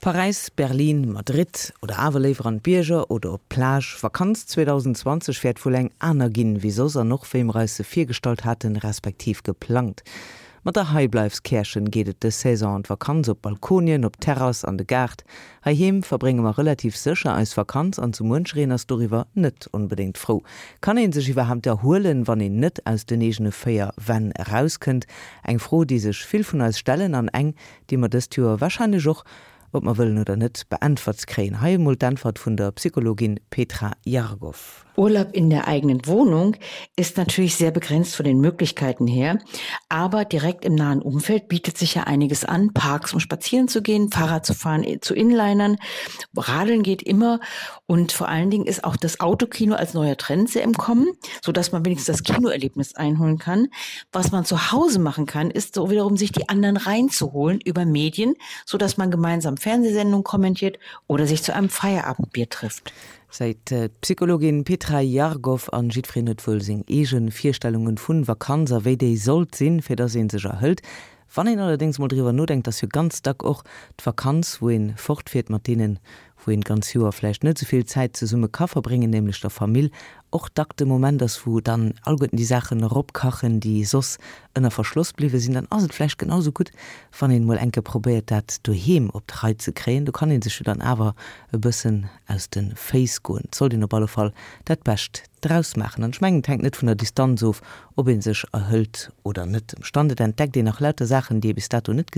Paräis, Berlin, Madrid oder awer léiwer an d'Bierger oder op d'Plage, Vakanz 2020 wäert wuel eng aner ginn wéi soss an och wéi mer eis se virgestallt haten, respektiv geplangt. Mat der Heibleifs-Käerchen geet et dës Saison an d'Vakanz, op Balkonien, op d'Terrass, an de Gaart. Heiheem verbrénge mer relativ sécher eis Vakanz an sou muenchereen ass doriwwer net onbedéngt frou. Kann een sech iwwerhaapt erhuelen, wann een net aus den eegene 4 Wänn erauskënnt? Eng Fro, déi sech vill vun eis stellen an eng, déi mer dëst Joer warscheinlech och, ob mer wëllen oder net, beäntwert kréien. Hei emol d'Äntwert vun der Psychologin Petra Jargow. Urlaub in der eigenen Wohnung ist natürlich sehr begrenzt von den Möglichkeiten her, aber direkt im nahen Umfeld bietet sich ja einiges an, Parks um spazieren zu gehen, Fahrrad zu fahren, äh, zu Inlinern, Radeln geht immer und vor allen Dingen ist auch das Autokino als neuer Trend sehr im Kommen, so dass man wenigstens das Kinoerlebnis einholen kann. Was man zu Hause machen kann, ist so wiederum sich die anderen reinzuholen über Medien, so dass man gemeinsam Fernsehsendungen kommentiert oder sich zu einem Feierabendbier trifft. Seet d'Psychologin Petra Jargow. An jiddwereen huet wuel seng eegen Virstellungen vun Vakanz a wéi déi sollt sinn, fir dass een sech erhëlt. Wann een allerdéngs mol driwwer nodenkt, ass jo ganz dack och d'Vakanz, wou een fortfiert mat deenen, wou een d'ganz Joer vläicht net esou vill Zäit zesumme ka verbréngen, nämlech der Famill, och dack de Moment ass, wou dann alleguerten déi Saachen eropkachen, déi soss ënner Verschloss bliwwe sinn, dann ass et vläicht genau sou gutt, wann een mol eng Kéier probéiert, dat doheem op d'Rei ze kréien. Do kann ee sech jo dann awer e bëssen aus de Féiss goen. Et sollt een op alle Fall dat Bescht draus maachen. An ech mengen, et hänkt net vun der Distanz of, ob ee sech erhëlt oder net. Ëmstand, et entdeckt een nach lauter Saachen, déi ee bis dato net gesi.